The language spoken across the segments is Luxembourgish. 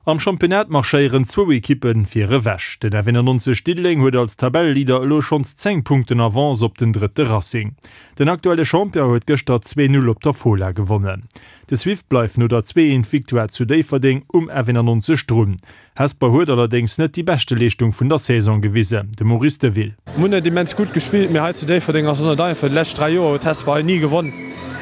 Am Championnat marschéieren zwou Ekippe vir ewech. Den F91 Diddeleng huet als Tabelleleader elo schonns 10 Punkten Avance op den drëtte Racing. Den aktuelle Champion huet gëschter 2, 0 op der Fola gewonnen. De Swift bleift no der 2, 1 Victoire zu Déifferdeng um F91 drun. Hesper huet allerdéngs net déi beschte Leeschtung vun der Saison gewisen, de Maurice Deville. Mir hunn net immens gutt gespillt, mee hei zu Déifferdeng ass et net einfach. Déi lescht 3 Joer huet Hesper hei ni gewonn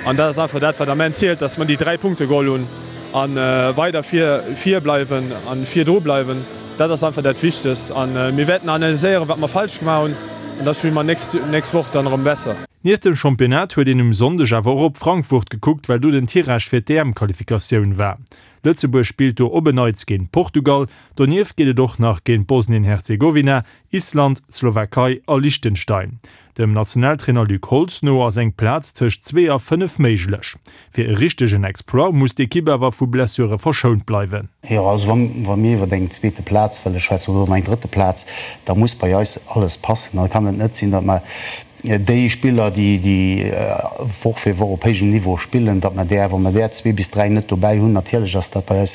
an dat ass einfach dat, wat am Enn zielt, dass mer déi 3 Punkte geholl hunn a weider vir vir bleiwen a virdru bleiwen. Dat ass einfach dat Wichtegst a mir wäerten analyséieren, wat mer falsch gemaach hunn an da spille mer nächst nächst Woch dann erëm besser. Nieft dem Championnat huet een um Sonndeg awer och op Frankfurt gekuckt, well do den Tirage fir d'EM-Qualifikatioun war. Lëtzebuerg spillt do op en Neits géint Portugal. Donieft geet et och nach géint Bosnien-Herzegowina, Island, d'Slowakei a Liechtenstein. Dem Nationaltrainer Luc Holtz no ass eng Plaz tëscht zwee a 5 méiglech. Fir e richtegen Exploit muss d'Ekipp awer vu Blessure verschount bleiwen. Jo, also wa mir iwwer eng zweete Plaz wëlle schwätzen oder eng drëtte Plaz, da muss bei eis alles passen. Da kann et net sinn, datt mer déi Spiller, déi Woch fir Woch op héijem Niveau spillen, datt mer där, wa mer där zwee bis dräi net dobäi hunn, natierlech ass dat bei eis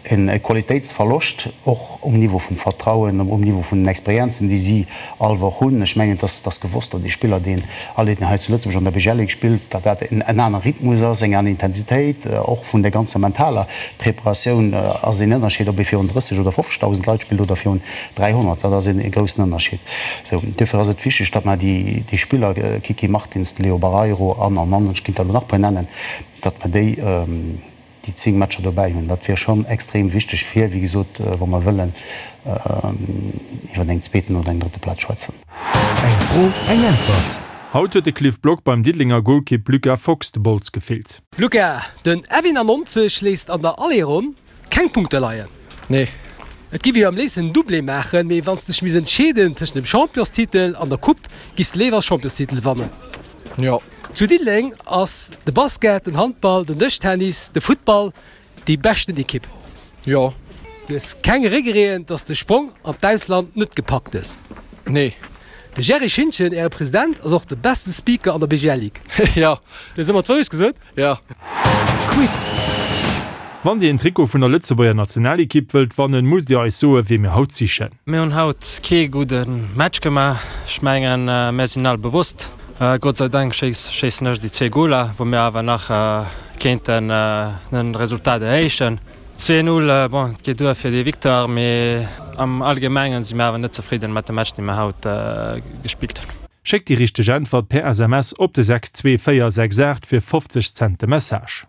e Qualitéitsverloscht, och um Niveau vum Vertrauen, um Niveau vun den Experienzen, déi si all Woch hunn. Ech mengen, et ass gewosst, datt ee Spiller, deen alleguerten hei zu Lëtzebuerg an der BGL Ligue spillt, datt dat en aner Rhythmus ass, eng aner Intensitéit, och vun der ganzer mentaler Preparatioun ass een Ënnerscheed, ob ee virun 30 oder 50.000 Leit spillt oder virun 300. Dat ass e groussen Ënnerscheed. Sou, duerfir ass et wichteg, datt mer déi, déi Spiller, Kiki Martins, de Leo Barreiro an, an, an, ech kéint der elo nach e puer nennen, datt mer déi, déi 10 Matcher dobäi hunn. Dat wier schonn extrem wichteg fir, wéi gesot, wa mer wëllen iwwer eng zweeten oder eng drëtte Plaz schwätzen. Eng Fro, eng Äntwert. Haut huet de Cliff Block beim Diddelenger Golkipp Luca Fox de Bols gefillt. Luca, den F91 léisst an der Aller-Ronn Keng Punkte leien? Nee. Et giff jo am léifsten en Doublé maachen, mee wanns de dech misst entscheeden tëschent dem Championstitel an der Coupe, giffs de léiwer Championstitel wannen? Jo. Zu Diddeleng ass de Basket, den Handball, den Dëschtennis, de Futtball déi beschten Ekipp. Jo. Du hues keng Regreten, dass de Sprong an d'Ausland net gepackt hues? Nee. De Jerry Schintgen, äre President, ass och de beste Speaker an der BGL Ligue. Jo. Du hues ëmmer d'Wourecht gesot? Jo. Quiz! Wann Dir een Trikot vun der Lëtzebuerger Nationalekipp wëllt wannen, musst Dir eis soen, wee mir haut sichen. Mir hunn haut kee gudde Match gemaach. Ech mengen, mir sinn all bewosst. Gott sei Dank schéissen ech déi zwee Goler, wou mir awer nach kéinten den Resultat erhéichen. 2, 0, bon, et geet duer fir déi Victoire, mee am Allgemengen si mir awer net zefridden mat dem Match, dee mir haut gespillt hunn. Schéckt déi richteg Äntwert per SMS op de 62468 fir 50 Cent de Message.